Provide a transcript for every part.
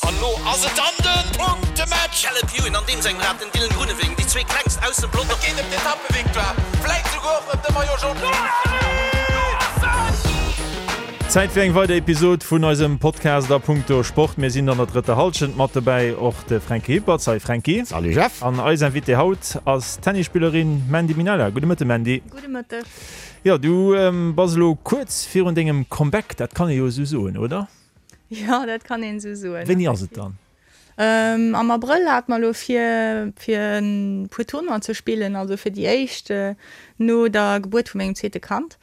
An lo ass et dann den Punktematch! Caleb Ewan an deem sengem Rad, den Dylan Groenewegen, déi zwee klengst aus dem Pelotong. Et geet ëm d'Etappevictoire, vläit souguer och ëm de Maillot Jaune. Zäit fir eng weider Episod vun eisem Podcast a punkto Sport. Mir sinn an der drëtter Hallschent, mat dobäi och de Franky Hippert. Salut Franky. Salut Jeff. An eis Invitée haut ass d'Tennisspillerin Mandy Minella. Gudde Mëtte Mandy. Gudde Mëtteg. Jo, du bass elo kuerz virun dengem Comeback, dat kann ee jo esou soen, oder? Jo, dat kann een esou soen. Wéini ass et dann? Am Abrëll hate mer elo vir, fir e puer Tournoien ze spillen, also fir déi éischt no der Gebuert vu mengem zweete Kand.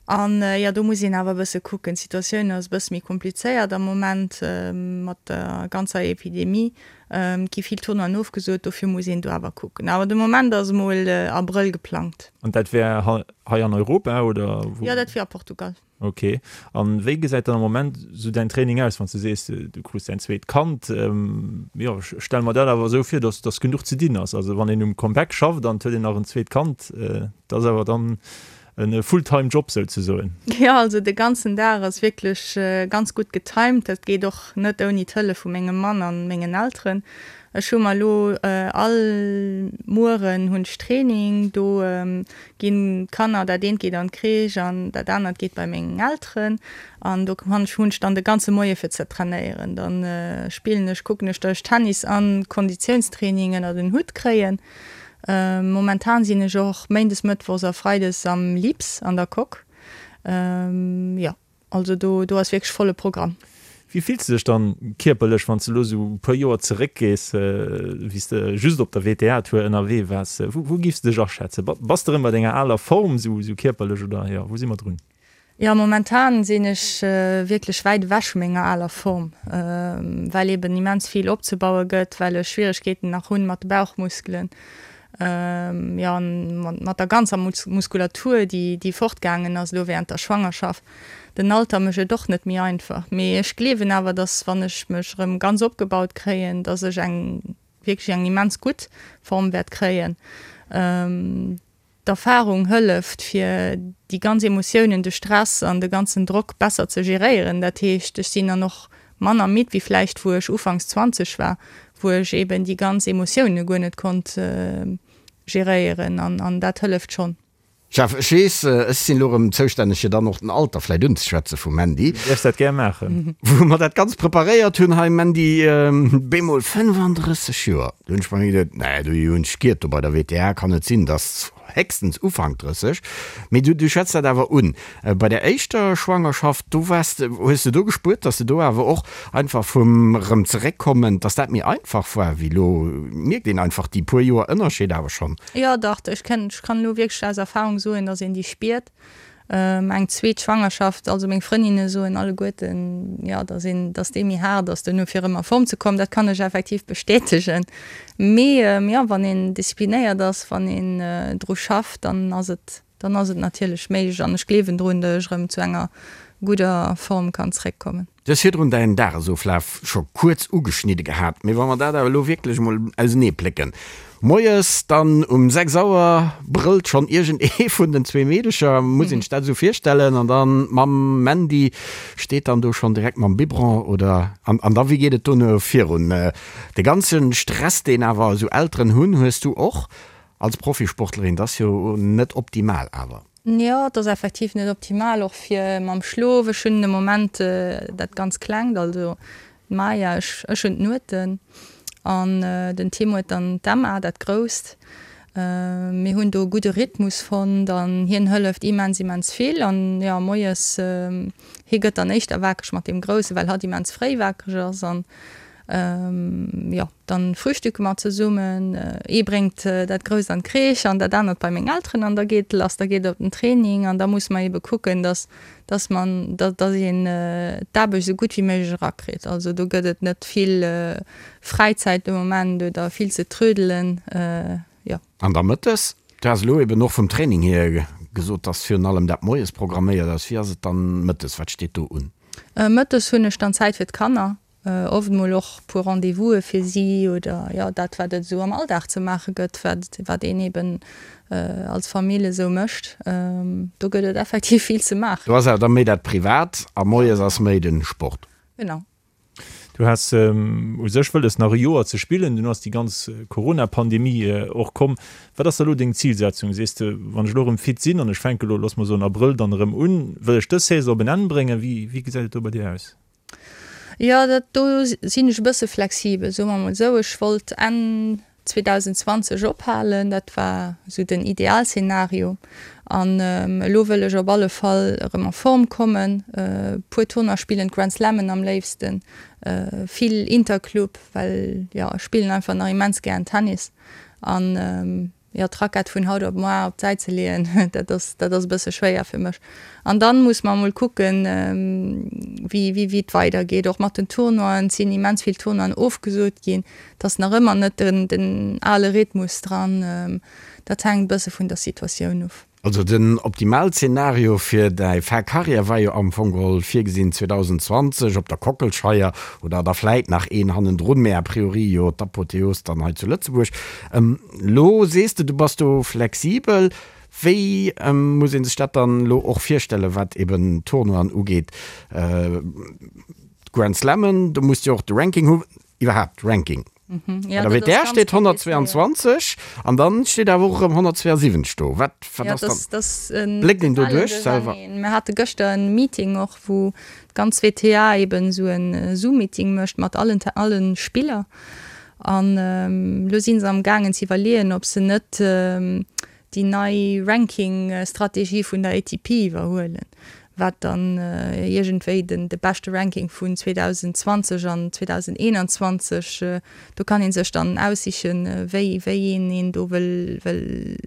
An jo, do muss een awer e bësse kucken. D'Situatioun ass e bësse méi komplizéiert am Moment mat der ganzer Epidemie. Et gi vill Tournoien ofgesot, dofir muss een do awer kucken. Awer de Moment ass emol Abrëll geplangt. An dat wär hei an Europa oder wou? Jo, dat wier a Portugal. Ok. An wéi gesäit dann am Moment sou däin Training aus, wann s du sees, du krus däin zweet Kand? Jo, ech stelle mer dat awer esou vir, dass dass genuch ze dinn ass. Also wann een um Comeback schafft an et huet een nach en zweet Kand, dat ass awer dann e Fulltime Job souzesoen. Jo, also de ganzen Dag ass wierklech ganz gutt getimed. Dat geet och net ouni d'Hëllef vu mengem Mann an mengen Elteren. Ech hu mer elo all Mueren hunn ech Training, do ginn d'Kanner, dat eent geet an d'Crèche an dat anert geet bei meng Elteren an do hunn ech dann de ganze Moie fir ze trainéieren. Dann spillen ech, kucken ech, datt ech Tennis an Konditiounstraining ënnert en Hutt kréien. Momentan sinn ech och méindes, mëttwochs a freides am Lips an der Coque. Jo. Also do do ass wierklech volle Programm. Wéi fills de dech dann kierperlech, wann s de elo esou e puer Joer zeréckgees, wéi s de just op der WTA-Tour ënnerwee waars? Wou wou giffs de dech aschätzen? Bass de erëm bei denger aler Form esou esou kierperlech oder jo, wou si mer drun? Jo, momentan sinn ech wierklech wäit ewech vu menger aler Form, well eben immens vill opzebaue gëtt, well ech Schwieregkeeten nach hunn mat de Bauchmuskelen. Jo, an mat der ganzer Muskulatur, déi déi fortgaangen ass elo während der Schwangerschaft. Den Alter mécht et och net méi einfach. Mee ech gleewen awer, dass wann ech mech erëm ganz opgebaut kréien, dass ech eng wierklech eng immens gutt Form wäert kréien. D'Erfahrung hëlleft fir déi ganz Emotiounen, de Stress an de ganzen Drock besser ze geréieren. Dat heescht, ech sinn dann och manner midd wéi vläicht wou ech ufanks 20 war, wou ech eben déi ganz Emotioune guer net konnt geréieren an dat hëlleft schonn. Jeff, ech weess, ech sinn elo erëm zoustänneg fir dann och den Alter vläicht unzeschwätze vum Mandy. Du däerfs dat gär maachen. Wou mer dat Ganzt preparéiert hunn hei, Mandy, bemol 35 Joer. Do hunn ech bei mir geduet, nee, do hunn ech giert, do bei der WTA kann et sinn, dass héchstens Ufank 30. Mee du, du schwätz dat awer un. Bei der éischter Schwangerschaft, do waars de, hues de do gespuert, dass de do awer och einfach vum erëm zeréckkommen, dass dat méi einfach war wéi elo? Mierkt een einfach déi puer Joer Ënnerscheed awer schonn? Jo, dach, ech kenn, ech kann elo wierklech aus Erfahrung soen, dass een déi spiert. Eng zweet Schwangerschaft, also meng Frëndinne soen alleguerten, jo, dass een, dass déi méi haart ass duerno fir erëm a Form ze kommen. Dat kann ech effektiv bestätegen. Mee jo, wann een disziplinéiert ass, wann een dru schafft, dann ass et, dann ass et natierlech méiglech an ech gleewen drun, datt ech erëm zu enger gudder Form kann zeréckkommen. Du hues virdrun däin Dagesoflaf scho kuerz ugeschnidde gehat, mee wa mer dat awer elo wierklech emol ausenee plécken. Moies dann um 6 Auer brëllt schonn iergend ee vun den zwee Meedecher, muss een sech dat esou virstellen, an dann d'Mamm Mandy steet dann do schonn direkt mam Biberon oder? An an da wéi geet et dono virun? De ganze Stress deen awer esou Elteren hunn, hues du och als Profisportlerin, dat ass jo net optimal awer. Jo, et ass effektiv net optimal, och fir mam Schlof. Ech hunn de Moment dat ganz Klengt, also d'Maya, ech ech hunn d'Nueten an den Tim huet dann d'Emma, dat Grousst. Mir hunn do e gudde Rhythmus fonnt an hien hëlleft immens, immens vill. An jo, moies, hie gëtt dann éischter wakereg mat deem Groussen, well hatt immens fréi wakereg ass an Jo, dann frühstücke mer zesummen. Ee bréngt dat Grousst an d'Crèche an dat anert bei meng Elteren an da geet et lass. Da geet et op den Training an da muss mer ebe kucken, dass, dass man, dass een d'Aarbecht esou gutt wéi méiglech erakritt. Also do gëtt et net vill Fräizäit de Moment oder vill ze trödelen, jo. An da mëttes? Du has elo eben och vum Training hier gesot, dass virun allem dat moies programméiert ass. Wéi ass et dann mëttes? Wat steet do un? Mëttes hunn ech dann Zäit fir d'Kanner. Oft mol och puer Rendez-vouse fir si oder jo dat wat et esou am Alldag ze maache gëtt, wat wat een eben als Famill esou mécht. Do gëtt et effektiv vill ze maachen. Do ass awer da méi dat Privat a moies ass méi de Sport. Genau. Du has u sech wëlles nach e Joer ze spillen, dunn ass déi ganz Corona-Pandemie och komm. Wat ass da elo deng Zilsetzung? Sees de, wann ech elo erëm fit sinn an ech fänke elo, looss mer soen Abrëll, dann erëm un, wëll ech dës Saison op en Enn bréngen? Wéi, wéi gesäit et do bei dir aus? Jo, dat do sinn ech e bësse flexibel, soe mer mol esou. Ech wollt Enn 2020 ophalen, dat war esou den Idealszenario. An elo wëll ech op alle Fall erëm a Form kommen, e puer Tournoie spillen, d'Grand Slammen am léifsten, vill Interclub, well jo ech spillen einfach nach immens gären Tennis. An jo, d'Rackett vun haut op moar op d'Säit ze leeën, dat ass, dat ass e bësse schwéier fir mech. An dann muss mer emol kucken, wéi, wéi, wéi et weidergeet, och mat den Tournoien. Et sinn immens vill Tournoien ofgesot ginn. Et ass nach ëmmer net den, den ale Rhythmus dran. Dat hänkt e bësse vun der Situatioun of. Also den Optimalzenario fir däi Fin Carrière war jo am Fong geholl virgesinn 2020 op der Kockelscheier oder da vläit nach een hannendrun, mä a priori jo d'Apotheos dann hei zu Lëtzebuerg. Lo sees de, du bass do flexibel. Wéi muss ee sech dat dann elo och virstellen, wat eben d'Tournoien ugeet, d'Grand Slammen, do muss de jo och de Ranking hu, iwwerhaapt Ranking. Ja, Bei der WTR steet 122 an dann steet awer och erëm 172 do. Wat, wat ja, ass dann? Das, das, Bléckt een do duerch selwer? Mir hate gëschter en Meeting och, wou d'ganz WTA eben esou en Zoom-Meeting mécht mat allen, allen Spiller. An elo si se am gaangen ze iwwerleeën, ob se net déi nei Ranking-Strategie vun der ATP iwwerhuelen, wat dann iergendwéi den de beschte Ranking vun 2020 an 2021, do kann ee sech dann aussichen, wéi wéi een een do wëll wëll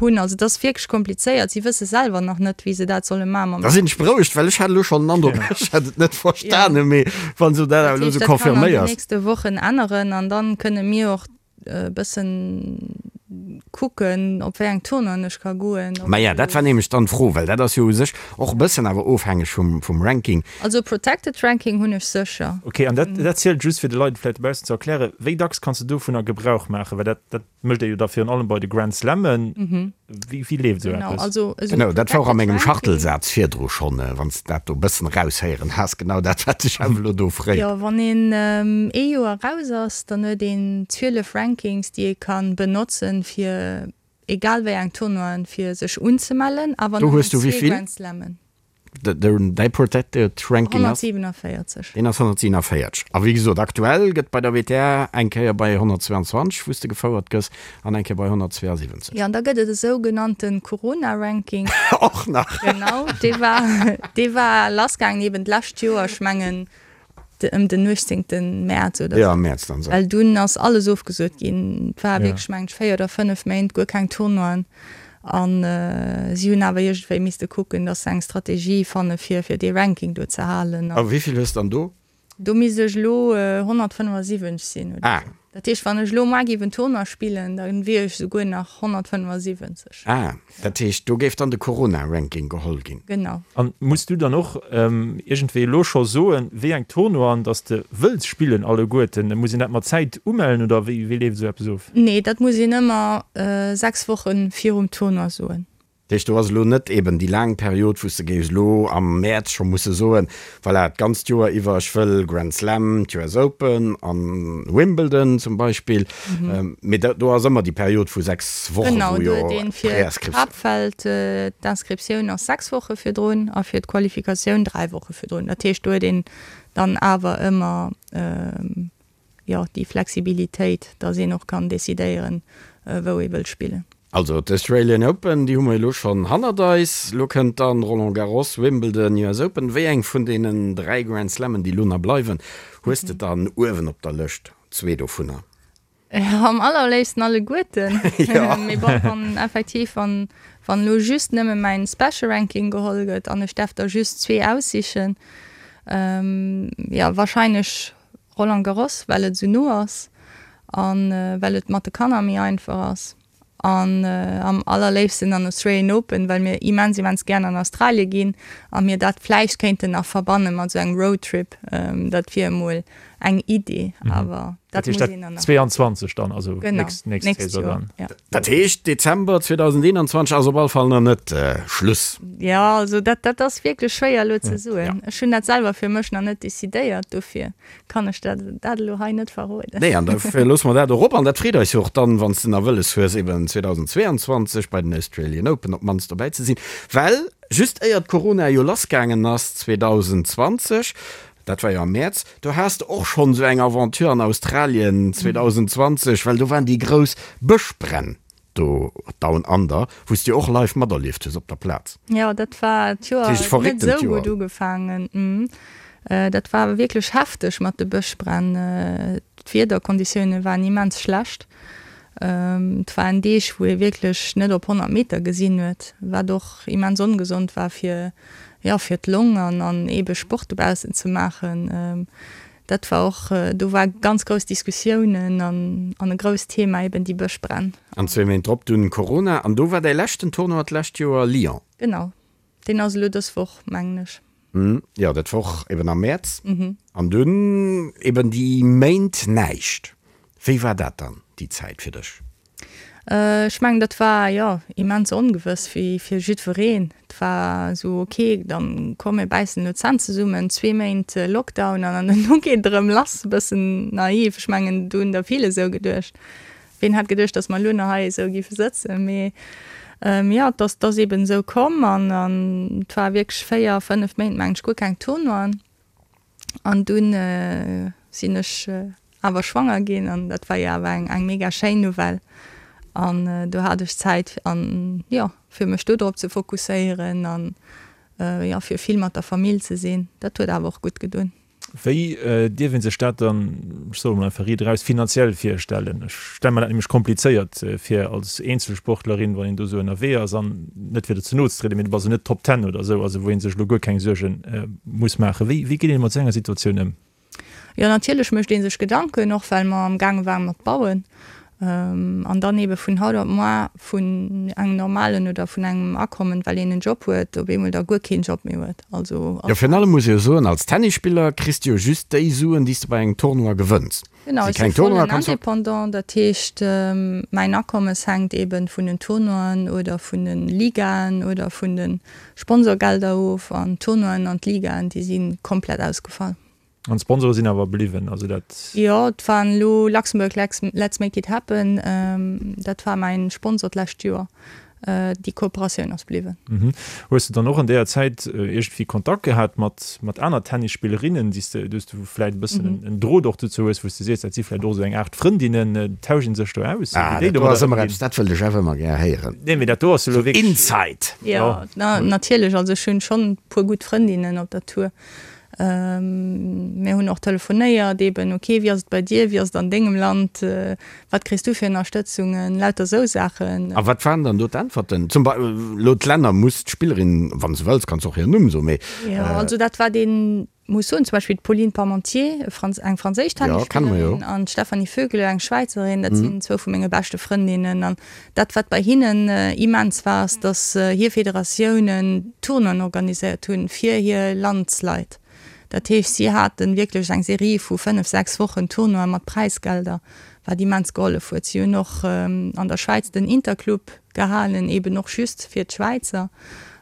hunn. Also et ass wierklech komplizéiert, si wësse selwer nach net, wéi se dat solle maachen mam. Da sinn ech berouegt, well ech hat elo schonn den Androck, ech hätt et net verstanen, mee wann s du dat awer elo esou Dat heescht, dat kann an den confirméiers. nächste Wochen änneren an dann kënne mir och e bëssen kucken, op wéi eng Tournoien ech ka goen. Maja, dat war nämlech dann d'Fro, well dat ass jo u sech och e bëssen awer ofhängeg vum, vum Ranking. Also Protected Ranking hunn ech sécher. Ok, an dat, dat zielt just fir de Leit et vläicht dobaussen ze erklären, wéi dacks kanns de dovunner Gebrauch maachen? Well dat, dat mécht ee jo da virun allem bei de Grand Slammen. Wéi, wéi leeft esou Genau, eppes? also esou Genau, dat war och a Protected mengem Ranking. Schachtelsaz virdru schonn, wann s de dat do e bëssen eraushéieren has, genau dat, wat ech awer elo do fréen. Jo, wann een ee Joer raus ass, dann huet een 12 Rankings, déi ee ka benotzen, fir egal wéi eng Tournoien, fir sech unzemellen, awer Do nëmmen hues du zwee wéivill? Grand Slammen. Däi Protected Ranking ass? 147. Deen ass 147. A wéi gesot, aktuell gëtt bei der WTA eng Kéier bei 122, wou s de gefouert gëss, an eng Kéier bei 172. Jo, an da gëtt et e sougenannte Corona-Ranking. Och nach? Genau, dee war, dee war lassgaangen eben d'lescht Joer, ech mengen ëm den 18. Mäerz oder sou. Ja, am Mäerz dann sou. Well dunn ass alles ofgesot ginn. Et war wierklech, mengen ech, 4 oder 5 Méint guer keng Tournoien. An si hunn awer iergendwéi misste kucken, datt se eng Strategie fanne fir fir dee Ranking do ze halen. A wéi vill hues de dann do? Do misst ech elo 175 sinn oder Ah. sou. Dat heescht, wann ech elo muar géif en Tournoi spillen, da wier ech souguer nach 175. Ah, dat heescht, do géif dann de Corona-Ranking geholl ginn. Genau. An muss du dann och iergendwéi elo scho soen, wéi eng Tournoien dass de wëlls spillen alleguerten? Muss een dat mat Zäit umellen oder wéi leeft esou eppes of? Nee, dat muss een ëmmer 6 Woche virum Tournoi soen. Dat heescht, do ass elo net eben déi laang Period, wou s de géifs elo am Mäerz scho musse soen, voilà, d'ganzt Joer iwwer, ech wëll Grand Slam, d'US Open an Wimbledon zum Beispill. Mee do ass ëmmer déi Period vu 6 Wochen, Genau, wou do jo huet een fir d'Préinscriptioun. d'Haaptfeld d'Inscriptioun ass 6 Woche virdrun a fir d'Qualifikatioun 3 Woche virdrun. Dat heescht, do huet een dann awer ëmmer jo, déi Flexibilitéit, dass een och kann decidéieren, wou ee wëll spillen. Also d'Australian Open, déi hu mer elo schonn hannert eis. Elo kënnt dann Roland Garros, Wimbledon, US Open. Wéi eng vun deenen 3 Grand Slammen, déi elo nach bleiwen, hues de dann uewen op der Lëscht? Zwee dovunner. Jo, am allerléifsten alleguerten. Mee bon, wann effektiv, wann, wann elo just nëmme mäin Special Ranking geholl gëtt an ech därf der just zwee aussichen, jo, wahrscheinlech Roland Garros, well et esou no ass a well et mat de Kanner méi einfach ass. An am allerléifsten an Australian Open, well mir immens, immens gären an Australie ginn a mir dat vläicht kéinten nach verbanne mat esou engem Roadtrip. Dat wier emol eng Idee, awer. Dat heescht dat 22 dann, also nächst, nächst Saison dann. Ja. Dat heescht Dezember 2021 ass op alle Fall nach net Schluss. Jo, also dat, dat ass wierklech schwéier elo ze soen. Ja. Ech hunn dat selwer fir mech nach net decidéiert, dofir kann ech dat, dat elo hei net verroden. Nee, an dofir loosse mer dat och op. An dat freet eis jo och dann, wann s de nach wëlles hues, eben 2022 bei den Australian Open op d'mannst dobäi ze sinn. Well just éier d'Corona jo lassgaangen ass 2020, Dat war jo am Mäerz. Do has de och schonn esou eng Aventure an Australien 2020, well do waren déi grouss Bëschbränn do Down Under, wou s de jo och live materlieft hues op der Plaz. Jo, dat war d'Joer huet net esou gutt ugefaangen. Dat war wierklech hefteg mat de Bëschbränn. D'Wiederkonditioune waren immens schlecht. Et waren Deeg, wou ee wierklech net op 100 Meter gesinn huet, wat och immens ongesond war fir, jo, fir d'Long an an eebe Sport dobaussen ze maachen. Dat war och, do war ganz grouss Diskussiounen an an e grousst Thema eeben déi Bëschbränn. An zwee Méint drop dunn Corona. An do war däi leschten Tournoi d'lescht Joer Lyon. Genau, deen ass elo dës Woch, mengen ech. Jo, dat wor eben am Mäerz. An dunn eben déi Méint näischt. Wéi war dat dann, déi Zäit fir dech? Ech mengen, dat war, jo, immens ongewëss, wéi fir jiddwereen. Et war esou, ok, dann komm mir bäissen elo d'Zänn zesummen, zwee Méint Lockdown an dann dono geet et erëm lass. E bëssen naiv, ech mengen, do hunn der vill esou geduecht. Ween hätt geduecht, datt mer elo nach hei esou géife sëtzen. Mee jo, et ass, et ass eben esou komm an et war wierklech 4, 5 Méint, mengen ech, guer keng Tournoien. An dunn sinn ech awer schwanger ginn an dat war jo awer eng, eng mega schéin Nouvelle. An do hat ech Zäit an, jo, fir mech do drop ze fokusséieren an, jo, fir vill mat der Famill ze sinn. Dat huet awer och gutt gedoen. Wéi dierf ee sech dat dann, ech soe mol einfach riit eraus, finanziell virstellen? Ech stelle mer dat nämlech komplizéiert vir als Eenzelsportlerin, wann een do esou ënnerwee ass an, net fir der ze no ze trieden, mee du bass jo net Top Ten oder esou, also wou ee sech elo guer keng Suerge muss maachen. Wéi wéi geet een mat esou enger Situatioun ëm? Jo, natierlech mécht ee sech Gedanken, och well mer am gaange waren mat bauen. An dann eebe vun haut op moar vun engem normalen oder vun engem Akommen, well een en Job huet, op eemol da guer keen Job méi huet. Also. Jo, virun allem muss ee jo soen, als Tennisspiller kriss de jo just déi Suen, déi s de bei engem Tournoi gewënns. Genau, ech si vollen Indépendant, dat heescht, mäin Akommes hänkt eebe vun den Tournoien oder vun de Ligaen oder vun de Sponsorgelder of. An d'Tournoien an d'Ligaen, déi si komplett ausgefall. An d'Sponsore sinn awer bliwwen, also dat. Jo, et waren elo Luxembourg Let's Make It Happen, dat war mäin Sponsor d'lescht Joer. Déi Kooperatioun ass bliwwen. Hues de dann och an deeër Zäit iergendwéi Kontakt gehat mat mat aner Tennisspillerinnen, déi s de, déi s du vläit e bëssen en Drot och dozou hues, wou s de sees, dat si vläit och esou eng Aart Frëndinnen, tauscht een sech do aus? Ah, dat do ass ëmmer eppes, dat wëllt ech awer ëmmer gär héieren. Nee, mee dat do ass elo wierklech. Inside! Jo, natierlech, also ech hunn schonn e puer gutt Frëndinnen op der Tour. Mir hunn och telefonéiert eben, ok, wéi ass et bei dir, wéi ass et an dengem Land, wat kriss du fir Ënnerstëtzungen, lauter esou Saachen. A wat waren dann do d'Äntwerten? Zum Bei elo d'Länner, muss d'Spillerin, wann s de wëlls, kanns de och hiren Numm soen, mee. Jo, also dat war deen, muss soen, zum Beispill d'Pauline Parmentier, eng franséisch Tennisspillerin, an d'Stefanie Vögele, eng Schwäizerin, dat sinn zwou vu menge beschte Frëndinnen. An dat, wat bei hinnen immens war, ass, datt hir Federatiounen Tournoien organiséiert hunn fir hir Landsleit. Dat heescht, si hate wierklech eng Serie vu fënnef, sechs Wochen Tournoie mat Präisgelder, wat immens gehollef huet. Si hunn och an der Schwäiz den Interclub gehalen, eeben och just fir d'Schwäizer.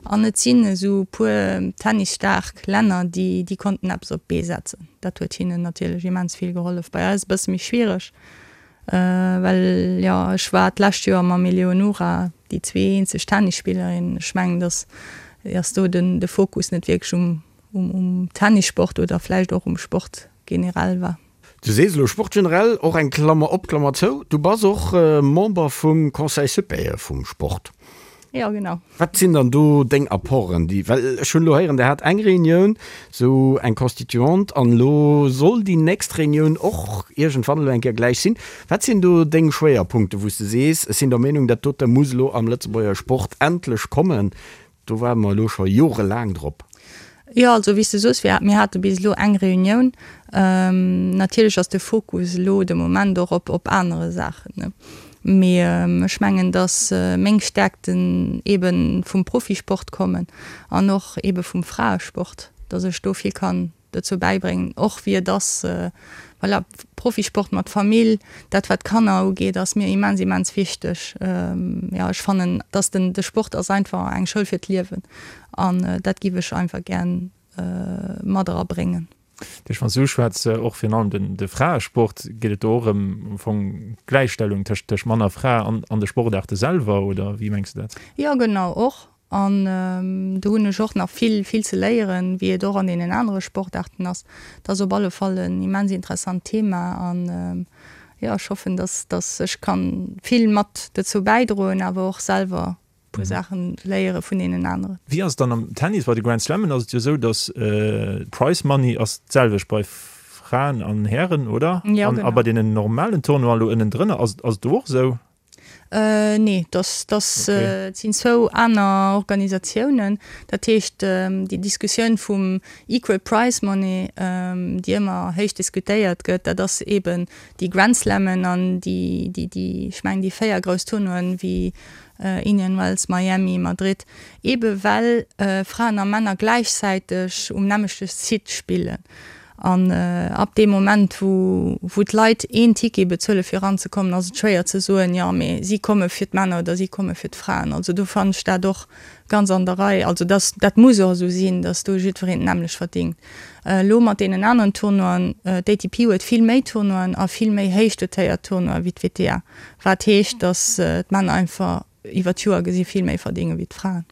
An et sinn esou puer tennisstaark Länner, déi déi konnten eppes op d'Bee setzen. Dat huet hinnen natierlech immens vill gehollef. Bei eis e bësse méi schwiereg. Well jo, ech war d'lescht Joer mam Eleonora déi zwee eenzeg Tennisspillerinnen. Ech mengen, dass ass do den de Fokus net wierklech um um Tennissport oder vläicht och um Sport generell war. Du sees elo Sport generell, och eng Klammer op, Klammer zou, du bass och Member vum Conseil supérieur vum Sport. Jo, genau. Wat sinn dann do deng Apporten, déi, well ech hunn elo héieren, Der hat eng Reunioun, esou eng Constituante, an elo soll déi nächst Reunioun och iergendwann elo eng Kéier gläich sinn. Wat sinn do deng Schwéierpunkte, wou s de sees, ech sinn der Meenung, dat dote muss elo am Lëtzebuerger Sport endlech kommen, do waarde mer elo scho jorelaang drop? Jo, also wéi s de soos, mir hate bis elo eng Reunioun. Natierlech ass de Fokus elo de Moment och op op anere Saachen. Mee ech mengen, datt meng Stäerkten eebe vum Profisport kommen an och eebe vum Fraesport, datt ech do vill kann. dozou bäibréngen, och wéi et ass, voilà, Profisport mat Famill, dat wat d'Kanner ugeet, ass mir immens, immens wichteg. Jo, ech fannen, dass den, de Sport ass einfach eng Schoul fir d'Liewen an dat giff ech einfach gär mat erabréngen. Duerch wann s du uschwätz, och virun allem den, de Fraesport, geet et do och ëm am Fong d'Gläichstellung tëscht, tëscht Mann a Fra an, an de Sportaarte selwer, oder wéi mengs du dat? Jo, genau, och. An do hunn ech och nach vill, vill ze léieren, wéi et och an deenen anere Sportaarten ass. Dat ass op alle Fall en immens interessant Thema an jo, ech hoffen, dass, dass ech kann vill mat dozou bäidroen, awer och selwer e puer Saachen léiere vun deenen aneren. Wéi ass et dann am Tennis? Bei de Grand Slammen ass et jo esou, dass d'Prize Money ass d'selwecht bei Fraen an Hären, oder? Jo, genau. A bei deenen normalen Tournoien elo ënnendrënner, ass et do och esou? Nee, dass, dass et sinn zwou aner Organisatiounen. Dat heescht, déi Diskussioun vum Equal Prize Money, déi ëmmer héich diskutéiert gëtt, dat ass eeben déi Grand Slammen an déi, déi, déi, ech mengen déi 4 grouss Tournoien wéi Indian Wells, Miami, Madrid, eebe well Fraen a Männer gläichzäiteg um nämmlechte Site spillen. An ab deem Moment, wou wou d'Leit een Ticket bezuele fir eranzekommen, ass et schwéier ze soen, jo mee si komme fir d'Männer oder si komme fir d'Fraen. Also do fannen ech dat och ganz an der Rei. Also dass dat muss och esou sinn, dass do jiddwereen d'nämmlecht verdingt. Elo mat deenen aneren Tournoien, d'ATP huet vill méi Tournoien a vill méi héich dotéiert Tournoien wéi d'WTA, wat heescht, dass d'Männer einfach iwwer d'Joer gesi vill méi verdinge wéi d'Fraen.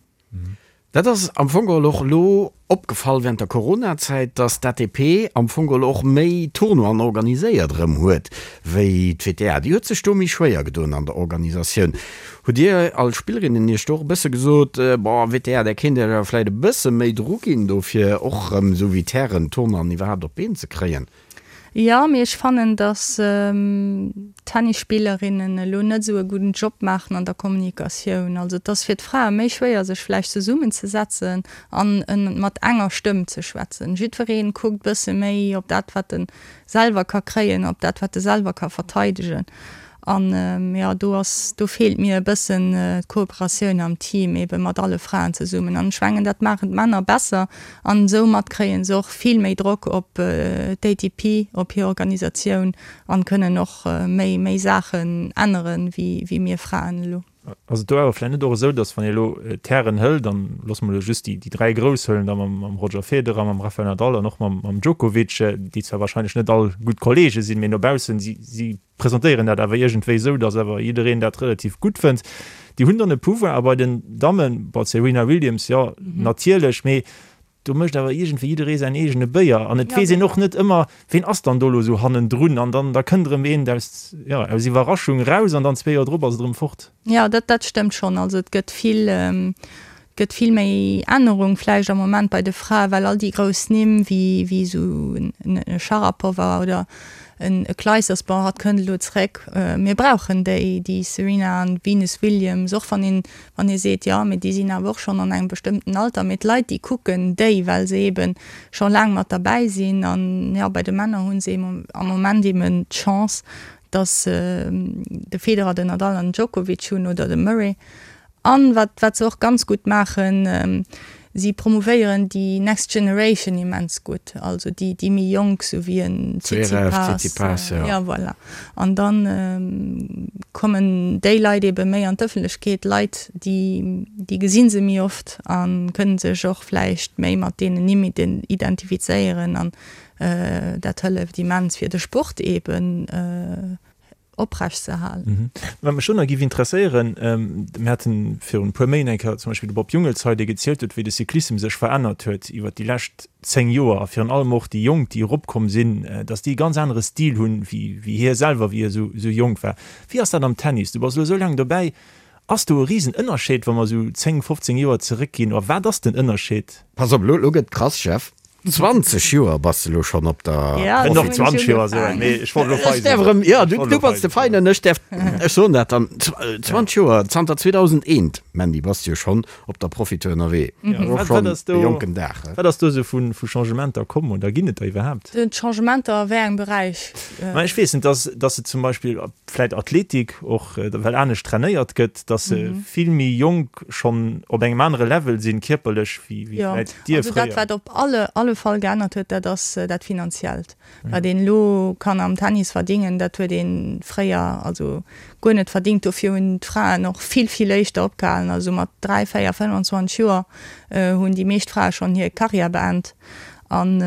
Dat ass am Fong geholl och elo opgefall während der Coronazäit, dass d'ATP am Fong geholl och méi Tournoien organiséiert erëm huet wéi d'WTA. Déi huet sech do méi schwéier gedoen an der Organisatioun. Hutt Dir als Spillerinnen Iech do och e bësse gesot, bon, WTA, där kéint Iech awer vläicht e bësse méi Drock ginn do fir och erëm esou wéi d'Hären d'Tournoien iwwerhaapt op d'Been ze kréien? Jo, mee ech fannen, dass d'Tennisspillerinnen elo net esou e gudden Job maachen an der Kommunikatioun. Also et ass fir d'Frae méi schwéier, sech vläicht zesummenzesetzen an mat enger Stëmm ze schwätzen. Jiddweree kuckt bësse méi op dat, wat e selwer ka kréien, op dat, wat e selwer ka verteidegen. An jo, do ass, do feelt mir e bëssen d'Kooperatioun am Team, ebe mat alle Fraen zesummen. An ech mengen, dat maachen d'Männer besser an soumat kréie se och vill méi Drock op d'ATP, op hir Organisatioun an kënnen och méi, méi Saachen änneren, wéi, wéi mir Fraen elo. Ass et do awer vläicht net och esou, datt wann ee elo d'Hären hëlt, an loosse mer elo just déi, déi 3 Grouss hëllen, da mam, mam Roger Federer, mam Rafael Nadal an och mam, mam Djokovic, déi zwar wahrscheinlech net all gutt Kollege sinn, mee no baussen, si, si presentéieren dat awer iergendwéi esou, datt awer jiddereen dat relativ gutt fënnt. Déi hunn dann e Pouvoir. A bei den Dammen, bon, d'Serena Williams, jo, natierlech, mee do mécht awer iergendwéi jidderee säin eegene Béier. An et weess een och net ëmmer, ween ass dann do elo esou hannendrun. An dann, da kënnt erëm een aus, jo, aus Iwwerraschung eraus an dann zwee Joer drop ass et erëm fort. Jo, dat, dat stëmmt schonn. Also et gëtt vill, gëtt vill méi Ännerung vläicht am Moment bei de Frae, well all déi grouss Nimm wéi wéi esou en Sharapova oder en Clijsters, bon hatt kënnt elo zeréck, mir brauchen déi, déi Serena an Venus Williams, och wann een wann ee seet, jo mee déi sinn awer och schonn an engem bestëmmten Alter, mee d'Leit déi kucken déi, well se eebe scho laang mat derbäi sinn an jo bei de Männer hu se am Moment eeben d'Chance, datt se de Federer, den Nadal an den Djokovic hunn oder de Murray. An wat, wat se och ganz gutt maachen, si promouvéieren déi next generation immens gutt, also déi, déi méi jonk, sou wéi en Tsitsipas. Tsitsipas, jo. Ja, voilà. An da kommen déi Leit ebe méi an d'Ëffentlechkeet, Leit, déi, déi gesi se méi oft a kënne sech och vläicht méi mat deenen Nimm identifizéieren. An dat hëlleft immens fir de Sport eben oprecht ze halen. Wat mech do nach géif interesséieren, mir haten virun e puer Méint eng Kéier zum Beispill de Bob Jungels hei, dee gezielt huet, wéi de Cyclissem sech verännert huet iwwert déi lescht 10 Joer a virun allem och déi Jonk, déi eropkomm sinn, datt déi e ganz anere Stil hunn, wéi hie selwer, wéi hie esou jonk war. Wéi ass dat am Tennis? Du bass elo esou laang dobäi. Ass do e Risenënnerscheed, wa mer esou 10, 15 Joer zeréckginn, oder wat ass den Ënnerscheed? Pass op, elo gëtt krass, Jeff. 20 Joer bass de lo schonn op der Ja, do hunn ech 20 Joer esou eng, mee ech wollt elo fei sinn. Ech däerf erëm, jo, du, du bass de Feinen, ech däerf, ech soen dat dann, 20 Joer, zanter 2001, Mandy, bass de jo schonn op der Profitour ënnerwee. Ja, Och wat, wat schonn ass do, e jonken Dag, he? wat ass do esou vu, vu Changementer komm oder ginn et der iwwerhaapt? Changementer a wéi engem Beräich? Ma ech weess net, dass, dass se zum Beispill vläit Athletik och, well anescht trainéiert gëtt, dass se vill méi jonk schonn op engem anere Level sinn, kierperlech, wéi Jo, vläit dir also dat fréier. wat op alle alle. alle Fall geännert huet, dat ass dat Finanziellt. Wat een elo kann am Tennis verdingen, dat huet ee fréier also guer net verdingt. Dofir hunn d'Fraen och vill, vill éischter opgehalen. Also mat 3, 4, 25 Joer hunn déi meescht Frae schonn hir Karriär beent. An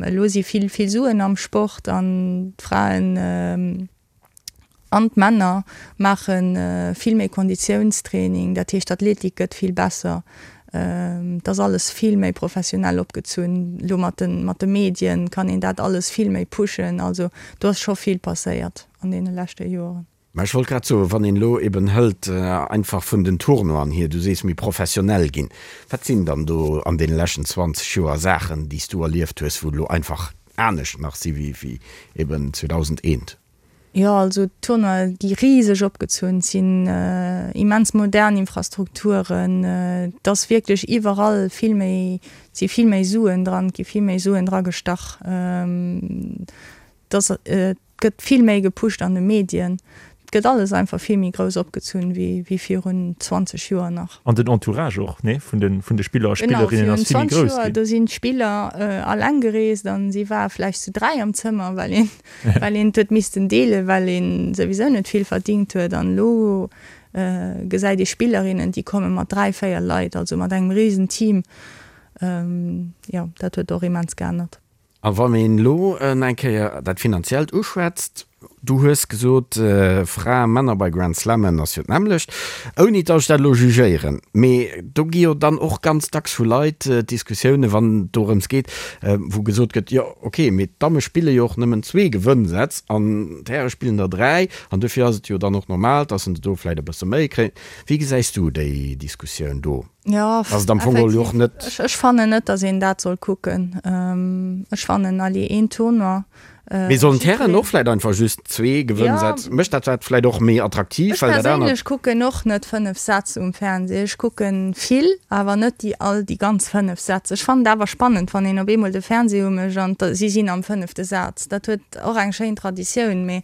elo si vill, vill Suen am Sport an d'Fraen an d'Männer maache vill méi Konditiounstraining. Dat heescht, d'Athletik gëtt vill besser. Et ass alles vill méi professionell opgezunn. Elo mat de, mat de Medien kann een dat alles vill méi pushen. Also do ass scho vill passéiert an deene leschte Joren. Mä ech wollt grad soen, wann een elo eben hëlt einfach vun den Tournoien hier, du sees méi professionell ginn, wat sinn dann do an deene leschten 20 Joer Saachen, déi s du erlieft hues, wou elo einfach anescht nach si wéi eben 2001? Jo, also d'Tournoie gi riseg opgezunn, et sinn immens modern Infrastrukturen, et ass wierklech iwwerall vill méi, et si vill méi Suen dran, et gi vill méi Suen dragestach. Et ass, et gëtt vill méi gepusht an de Medien. Et gëtt alles einfach vill méi grouss opgezunn wéi virun 20 Joer nach. An den Entourage och, nee, vun de vun de Spiller a Spillerinnen ass vill méi grouss ginn. Genau, virun 20 Joer, do sinn d'Spiller alleng gereest an si ware vläicht zu 3 am Zëmmer, well een well een et huet missten deelen, well ee souwisou net vill verdingt huet. An elo gesäit ee Spillerinnen, déi komme mat 3, 4 Leit, also mat engem risen Team. Jo, dat huet och immens geännert. A wann een elo eng Kéier dat Finanziellt uschwätzt, du hues gesot, Frae, Männer bei Grand Slammen ass jo d'nämmlecht, ouni datt ech dat elo jugéieren, mee do gi jo dann och ganz dacks vu Leit Diskussiounen, wann et dorëms geet, wou gesot gëtt, jo ok, mee d'Damme spille jo och nëmmen zwee Gewënnsätz an d'Häre spillen der dräi an dofir ass et jo dann och normal, datt se do vläicht e bësse méi kréien. Wéi gesäis du déi Diskussioun do? Jo, Ass et am Fong geholl jo och net. Ech fannen net, datt een dat soll kucken. Ech fannen, allez, een Tournoi. Mee sollen d'Hären och vläit einfach just zwee Gewënnsätz? Mécht dat dat vläit och méi attraktiv, Ech well dat anert. Ech perséinlech kucken och net 5 Sätz um Fernseh. Ech kucken vill, awer net déi all déi ganz 5 Sätz. Ech fannen et awer spannend, wann een op eemol de Fernseh umécht an si sinn am fënnefte Saz. Dat huet och eng schéin Traditioun, mee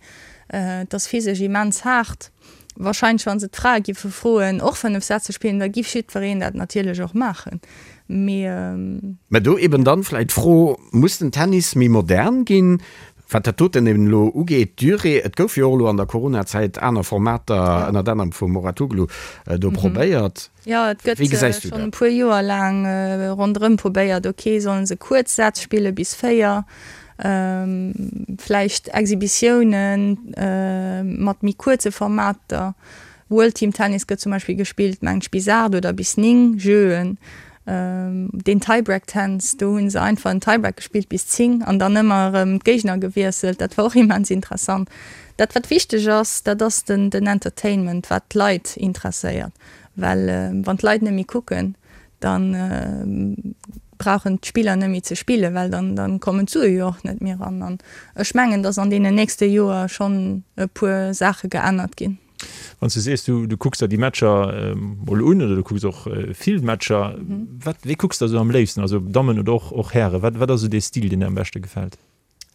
et ass physesch immens haart. Wahrscheinlech wann se d'Frae giffe froen och 5 Sätz ze spillen, da giff jiddwereen dat natierlech och maachen. Mee. Mä do eben dann vläit d'Fro, Muss den Tennis méi modern ginn, wat dat doten eben elo ugeet, d'Durée? Et gouf jo och elo an der Coronazäit aner Formater, ënnert anerem vum Mouratoglou, do probéiert. Jo, et gëtt schonn e puer Joer laang ronderëm probéiert, ok, sollen se kuerz Sätz spille bis 4, vläicht Exhibitiounen mat méi kuerze Formater. World Team Tennis gëtt zum Beispill gespillt, mengt ech, bis 8 oder bis 9 Jeuen. Deen Tiebreak Tennis, do hu se einfach en Tiebreak gespillt bis 10 an dann ëmmer erëm d'Géigner gewiesselt. Dat war och immens interessant. Dat wat wichteg ass, dat ass den Entertainment, wat d'Leit interesséiert. Well wann d'Leit net méi kucken, da brauchen d'Spiller net méi ze spillen, well dann dann kommen d'Sue jo och net méi eran. An ech mengen, datt an deenen nächste Joer schonn e puer Saache geännert ginn. Wann s du sees, du du kucks der déi Matcher mol un oder du kucks och vill Matcher, wat wéi kucks de esou am léifsten, also Dammen oder och och Hären, wat wat ass esou dee Stil, deen der am beschte gefält?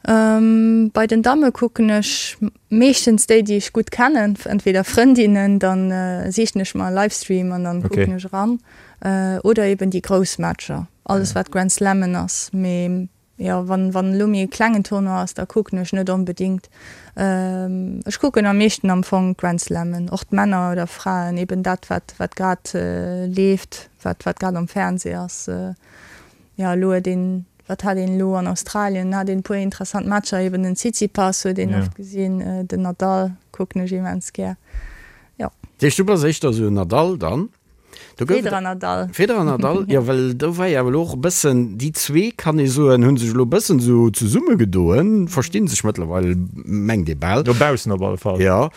Bei den Damme kucken ech meeschtens déi, déi ech gutt kennen, entweder Frëndinnen, dann sichen ech mer e Livestream an dann kucken ech eran, oder eben déi grouss Matcher, alles wat Grand Slammen ass. Mee jo, wann wann elo méi e klengen Tournoi ass, da kucken ech net onbedingt. Ech kucken am meeschten am Fong d'Grand Slammen, och d'Männer oder Fraen, eben dat wat wat grad leeft, wat wat grad am Fernseh ass. Jo, elo huet een, wat hat een elo an Australien, hat een e puer interessant Matcher, eben den Tsitsipas huet een oft gesinn, den Nadal kucken ech immens gär, jo. Dat heescht, du bass éischter esou en Nadal dann? Do gouf et. Federer, Nadal. Federer, Nadal, jo, well do war jo awer elo och e bëssen, déi zwee, kann ee soen, hu sech elo e bëssen esou zesummegedoen, versti sech mëttlerweil, mengt ee bal. No baussen op alle Fall. Jo.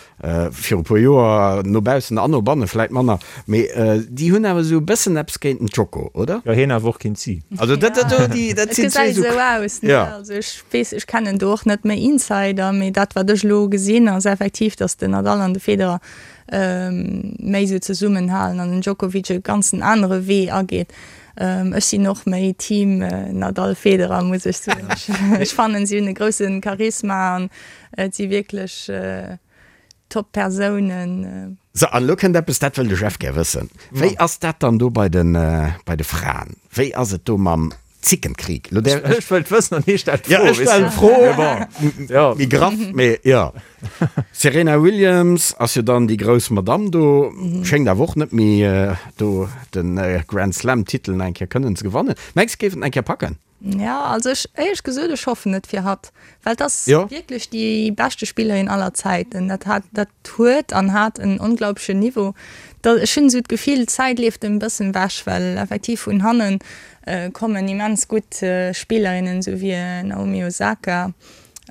Viru puer Joer, no baussen an no banne vläit manner, mee déi hunn awer esou e bëssen eppes géint den Djoko, oder? Jo, hien awer och géint si. Also dat, dat do, déi, dat sinn zwee esou. Et gesäit esou aus, ne? Ja. Also ech weess, ech kennen do och net méi Insider, mee dat wat ech elo gesinn ass effektiv, datt den Nadal an de Federer méi esou zesummenhalen an den Djokovic e ganzen anere Wee ageet. Ech sinn och méi Team Nadal-Federer, muss ech soen. Ech fannen, si hunn e grousse Charisma an Et si wierklech top Persounen. Sou, an elo kënnt eppes, dat wëll de Jeff gär wëssen. Wéi ass dat dann do bei de, bei de Fraen? Wéi ass et do mam. Zickenkrieg. Lo där, Ech wëllt wëssen an hie stellt Ja, d'Fro, ech weess stellen de. d'Fro, Mee bon, ja. méi graff, mee jo. Serena Williams ass jo dann déi grouss Madamm do, schéngt awer och net méi do de Grand Slam Titel nach eng Kéier kënnen ze gewannen. Mengs de, géif et nach eng Kéier packen? Ja, also ech, éierlech gesot, ech hoffen et fir hatt, well et ass Jo. wierklech déi beschte Spillerin aller Zäiten. Dat hat, dat huet an hat en onglaublechen Niveau. Da, ech hunn esou d'Gefill, d'Zäit leeft em e bëssen ewech, well effektiv vun hannen kommen immens gutt Spillerinnen, esou wéi Naomi Osaka.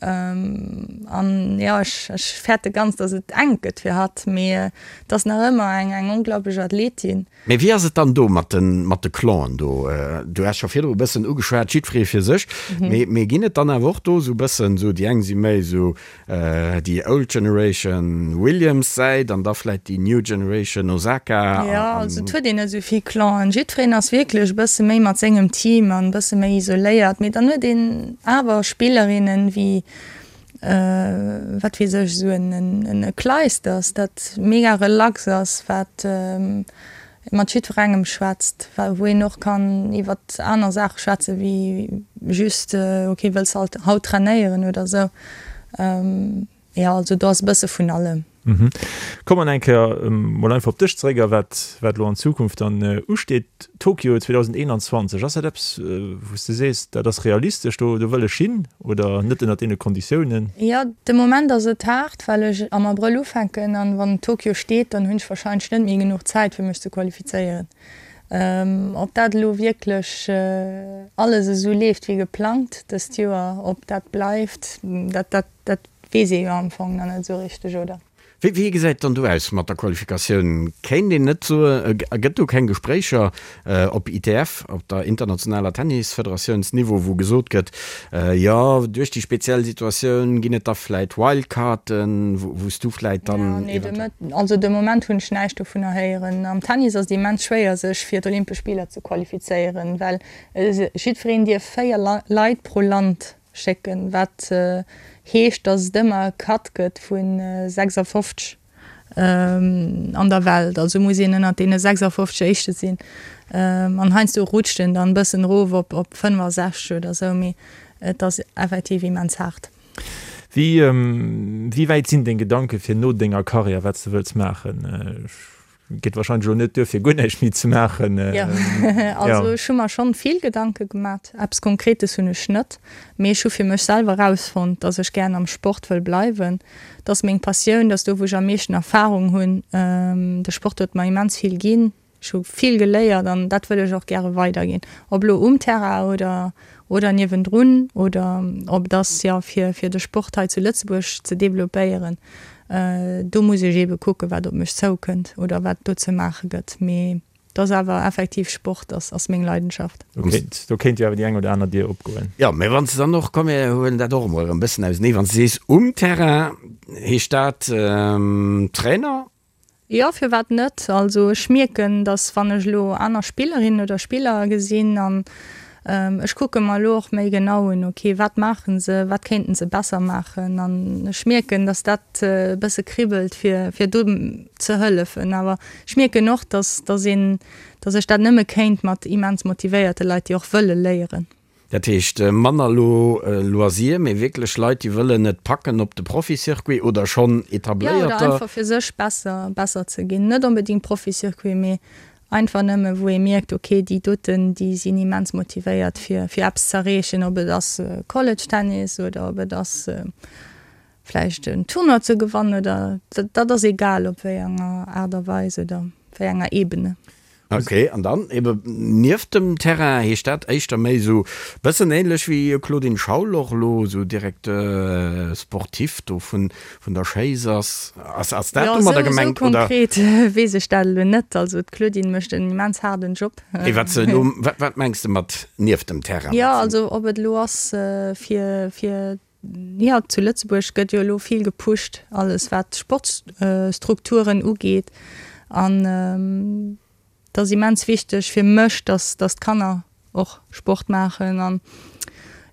An jo, ech, ech fäerte ganz, datt et enk gëtt fir hatt, mee et ass nach ëmmer eng, eng onglaubleg Athletin. Mee wéi ass et dann do mat de mat de Clanen do? Du has scho virdru e bëssen ugeschwat, jiddweree fir sech. Mee mee ginn et dann awer och do esou bëssen esou, déi eng si méi esou déi old generation Williams Säit an da vläit déi new generation Osaka Jo, an. also et huet een net esou vill Clanen. Jiddwereen ass wierklech e bësse méi mat sengem Team an e bësse méi isoléiert. Mee dann huet een awer Spillerinnen wéi wat weess ech, esou en Clijsters, dat mega relax ass, wat mat jiddwerengem schwätzt, wou een och kann iwwer aner Saache schwätze wéi just, ok, wëlls de haut trainéieren oder esou. Jo, also do ass e bësse vun allem. Komme mer eng Kéier mol einfach op dech zeréck a wat wat elo an Zukunft dann usteet. Tokio 2021, ass dat eppes, wou s de sees, dat ass realistesch, do do wëll ech hin oder net ënnert deene Konditiounen? Jo, de Moment ass et haart, well ech am Abrëll ufänken an wann Tokio steet, dann hunn ech warscheinlech net méi genuch Zäit fir mech ze qualifizéieren. Ob dat elo wierklech alles esou leeft wéi geplangt dëst Joer, ob dat bleift, dat dat Dat weess ee jo am Fong nach net esou richteg, oder? Wéi wéi gesäit et dann do aus mat der Qualifikatioun? Kéint een net soen, gëtt do keng Gespréicher op ITF, op der internationaler Tennisfederatiounsniveau, wou gesot gëtt, jo duerch déi speziell Situatioun ginn et da vläit Wildcarden, wou s du vläit dann eventuell. Nee, also de Moment hunn ech näischt dovunner héieren. Am Tennis ass et immens schwéier sech fir d'Olympesch Spiller ze qualifizéieren, well jiddwereen dierf 4 Leit pro Land Schécken, wat heescht, dass et ëmmer e Cut gëtt vu 56 an der Welt. Also muss een ënnert deene 56 Éischte sinn. An heiansdo rutscht en dann e bëssen erof op op 65 oder esou, mee et ass effektiv immens haart. Wéi wéi wäit sinn deng Gedanke fir no denger Karriär, wat s de wëlls maachen? Geet wahrscheinlech elo net duer fir guer näischt méi ze maachen. Jo, also ech hu mer schonn vill Gedanke gemat. Eppes Konkretes hunn ech net, mee ech hu fir mech selwer erausfonnt, dass ech gären am Sport wëll bleiwen. Dat ass meng Passioun, dat ass do wou ech am meeschten Erfarung hunn. De Sport huet mer immens vill ginn, ech hu vill geléiert an dat wëll ech och gäre weiderginn. Ob elo um Terrain oder oder niewendrun oder ob et ass jo fir fir de Sport hei zu Lëtzebuerg ze developpéieren. Do muss ech eebe kucken, wat op mech zoukënnt oder wat do ze maache gëtt. Mee et ass awer effektiv Sport ass ass meng Leidenschaft. Do kéint, do kéint jo awer déi eng oder aner Dier opgoen. Jo, mee wann s de dann och, komm mir huelen dat och emol erëm e bëssen ausenee, wann s de sees um Terrain, heescht dat Trainer? Jo, firwat net? Also ech mierken, datt wann ech elo aner Spillerinnen oder Spiller gesinn an ech kucke mer elo och méi genau un, ok, wat maache se, wat kéinten se besser maachen an ech mierken, datt dat e bësse kribbelt fir fir do ze hëllefen. Awer ech mierken och, datt datt een, datt ech dat nëmme kéint mat immens motivéierte Leit, déi och wëlle léieren. Dat heescht manner elo Loisir, mee wierklech Leit, déi wëllen et packen op de Profi-Circuit oder schonn etabléierter. Jo, oder einfach fir sech besser, besser ze ginn. Net onbedéngt Profi-Circuit, mee einfach nëmme wou ee mierkt, ok, déi doten, déi sinn immens motivéiert fir, fir eppes ze erreechen, ob et ass College-Tennis oder ob et ass vläicht en Tournoi ze gewannen oder, dat ass egal op wéi enger Aart a Weis oder wéi enger Ebene. Ok, an dann ebe nieft dem Terrain, heescht dat éischter méi esou bëssen ähnlech wéi Claudine Schaul och elo esou Directeur sportif do vun vun der Schéiss ass? Ass ass dat Jo, domadder esou esou gemengt oder? konkret weess ech dat elo net. Also d'Claudine mécht en immens haarden Job. Nee, wat se elo, wat wat mengs de mat nieft dem Terrain? Jo, also ob et elo ass fir fir Jo, zu Lëtzebuerg gëtt jo elo vill gepusht, alles wat Sportsstrukturen ugeet. An et ass immens wichteg fir mech, dass dass d'Kanner och Sport maachen. An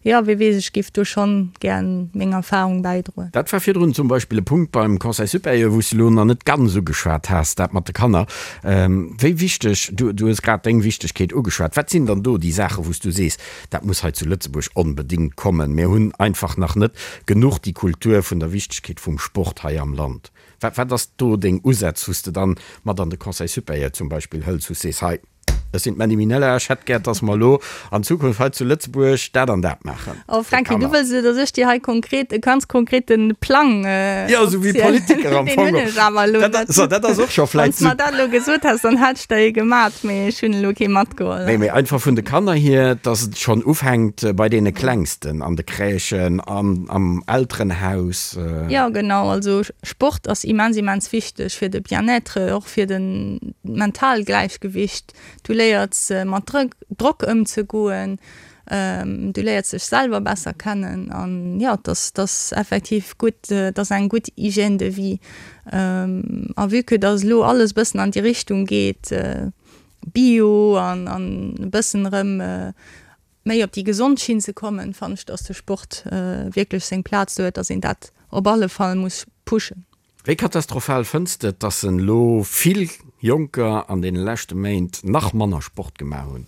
jo. Jo, wie weess, ech giff do schonn gären meng Erfahrung bäidroen. Dat war virdrun zum Beispill e Punkt beim Conseil supérieur, wou s de elo nach net ganz ugeschwat has, dat mat de Kanner. Wéi wichteg, du hues grad deng Wichtegkeet ugeschwat, wat sinn dann do déi Saachen, wou s du sees, dat muss hei zu Lëtzebuerg onbedéngt kommen, mir hunn einfach nach net genuch déi Kultur vun der Wichtegkeet vum Sport hei am Land? Wat, wat ass do deng Usätz, wou s de dann mat an de Conseil supérieur zum Beispill hëls, wou s sees, hei, Ech sinn d'Mandy Minella, ech hätt gär, dass mer elo an Zukunft hei zu Lëtzebuerg dat an dat maachen. Oh Franky, du wëlls elo, dass ech dir hei konkret, e ganz konkrete Plang Jo, esou wéi Politiker am Fong. Deen hunn ech awer elo net. So, dat ass och scho vläicht. Wann s de mer dat elo gesot häss, dann hätt ech der ee gemat, mee ech hunn elo kee matgeholl. Nee, mee einfach vun de Kanner hier, dass et schonn ufänkt bei deene Klengsten, an de Crèchen, an am Elterenhaus. Jo, genau. Also Sport ass immens, immens wichteg fir de Bien-être, och fir de mentaalt Gläichgewicht. Du léiers mat Drock ëmzegoen, du léiers dech selwer besser kennen an jo, et ass, et ass effektiv gutt, et ass eng gutt Hygiène de vie. A vue que dass elo alles e bëssen an déi Richtung geet, Bio an e bëssen erëm méi op déi gesond Schinn ze kommen, fannen ech, dass de Sport wierklech seng Plaz do huet, dass een dat op alle Fall muss pushen. Wéi katastrophal fënns de et, dass en elo vill Jonker an deene leschte Méint nach manner Sport gemaach hunn?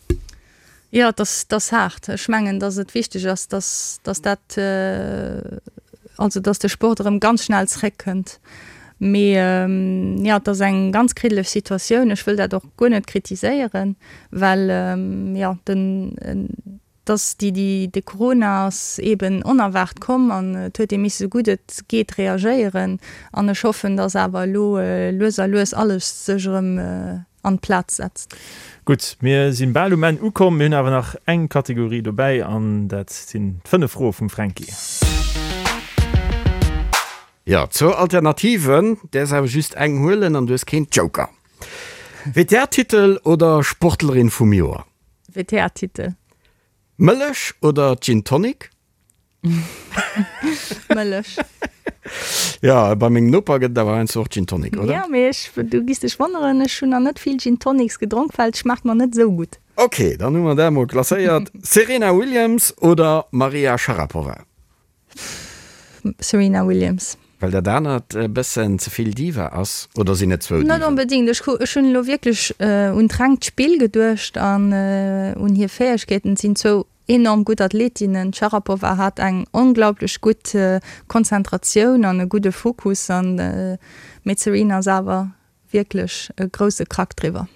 Jo, et ass, et ass haart. Ech mengen, dass et wichteg ass, dass, dass dat, also dass de Sport erëm ganz schnell zréckkënnt. Mee jo, et ass eng ganz kriddeleg Situatioun. Ech wëll dat och guer net kritiséieren, well jo, den, dass déi, déi, de Corona ass eeben onerwaart komm an et huet ee misse sou gutt et geet reagéieren. An ech hoffen, dass awer elo lues a lues alles sech erëm an d'Plaz setzt. Gutt, mir si bal um Enn ukomm. Mir hunn awer nach eng Kategorie dobäi an dat sinn d'fënnef Froe vum Fränki. Jo, zwou Alternativen, däers awer just eng huelen an du hues keen Joker. WTA-Titel oder Sportlerin vum Joer? WTA-Titel. Mëllech oder Gin Tonic? Mëllech. Jo, bei mengem Noper gëtt et awer heiansdo och Gin Tonic, oder? Jo, mee ech, du giss dech wonneren, ech hunn nach net vill Gin Tonics gedronk, well et schmaacht mer net esou gutt. Ok, dann hu mer dat emol klasséiert. Serena Williams oder Maria Sharapova? Serena Williams. Well dat anert e bëssen ze vill Diva ass? Oder sinn et zwou Net Diven? onbedéngt. Ech hu, ech hunn elo wierklech un d'rengt Spill geduecht an un hir Fäegkeeten. Et sinn zwou enorm gutt Athletinnen. D'Sharapova hat eng onglaublech gutt Konzentratioun an e gudde Fokus an, mee d'Serena ass awer wierklech e grousse Krack driwwer.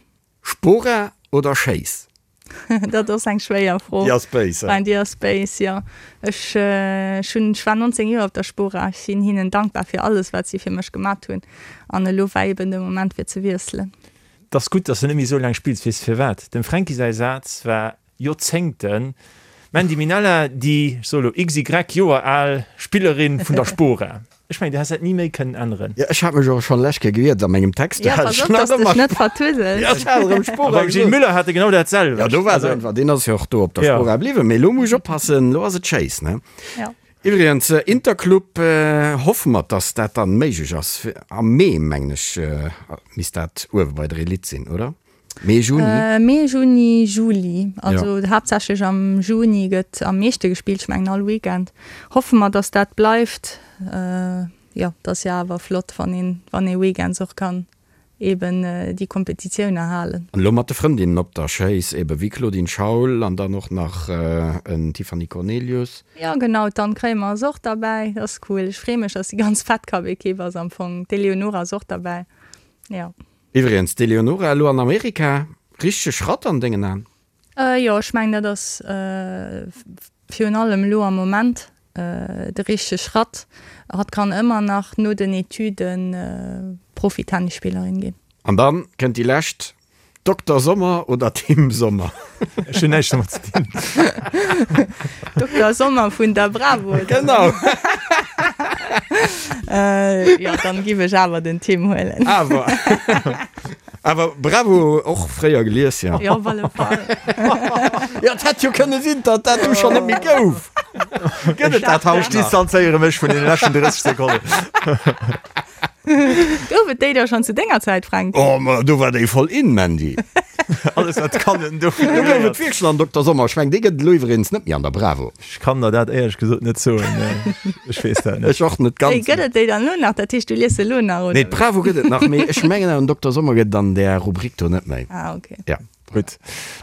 Spora oder Schéiss? Dat ass eng schwéier Fro. Déi ass béis, he? Déi ass béis, jo. Ech, ech hunn, ech war 19 Joer op der Spora. Ech sinn hinnen dankbar fir alles, wat si fir mech gemat hunn. An elo war eben de Moment fir ze wiesselen. 't ass gutt, dass de net méi esou laang spills. Weess de firwat? Dem Fränki säi Saz war Joerzéngten d'Mandy Minella, déi, ech soe lo XY Joer al Spillerin vun der Spora. Ech mengen, du häss dat ni méi kënnen änneren. Jo, ech hat mech och schonn lech Kéier gewiert a mengem Text. Jo, pass op, dass dech net vertusels. Jo, ech hat erëm Spora A beim Gilles gesot. Müller hat e genau dat selwecht. Jo, do war se einfach, deen ass jo och do op der Spora bliwwen. Mee elo muss ech oppassen, elo ass et Schéiss, ne? Jo. Iwwregens, Interclub, hoffe mer, dass dat dann méiglech ass. Am Mee, mengen ech, misst dat uewe bei der Elite sinn, oder? Mee, Juni? Mee, Juni, Juli. Also haaptsächlech am Juni gëtt am meeschte gespillt, ech mengen all Weekend. Hoffe mer, dass dat bleift. Jo, et ass jo awer flott, wann een, wann ee weekends och kann eben déi Kompetitioune halen. An elo mat de Frëndinnen op der Schéiss, ebe wéi Claudine Schaul an dann och nach en Tiffany Cornelius. Jo genau, d'Anne Kremer ass och derbäi, dat ass cool. Ech freeë mech, dass déi ganz Fed Cup Equipe ass am Fong. D'Eleonora ass och derbäi, jo. Iwwregens, d'Eleonora elo an Amerika, richtege Schratt an dengen Aen? Jo, ech mengen dat ass virun allem elo am Moment de richtege Schratt. Hatt kann ëmmer nach no den Etüden Profi-Tennisspillerin ginn. An dann kënnt déi lescht, Dokter Sommer oder Tim Sommer? Ech hunn näischt domat ze dinn. Dokter Sommer vun der Bravo, oder? Genau. Jo, dann giff ech awer den Tim huelen. Awer. Awer Bravo och fréier gelies, jo. Jo, op alle Fall. Jo, et hätt jo kënne sinn, datt dat du schonn net méi gouf. Gëtt et dat haut Ech distanzéiere mech vun deene leschten 30 Sekonnen. Gouf et déi da schonn zu denger Zäit, Fränk? Oh, ma do war déi voll in, Mandy. Alles wat kann en do. Do gouf et wierklech nach en Dokter Sommer. Ech mengen, dee gëtt et elo iwweregens net méi an der Bravo. Ech kann der dat éierlech gesot net soen. Ech weess dat net. Ech och net ganz. Wéi gëtt et déi dann elo nach? Dat heescht, du lies se elo nach, oder? Nee, d'Bravo gëtt et nach, mee ech mengen awer den Dokter Sommer gëtt et an där Rubrik do net méi. Ah, ok. Ja. Gutt,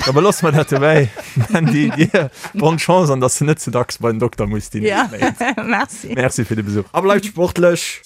da beloosse mer dat dobäi. Mandy, dir bonne Chance an dass de net ze dacks bei den Dokter muss déi Ja, nächst Méint. merci. Merci fir de Besuch. A bleift sportlech!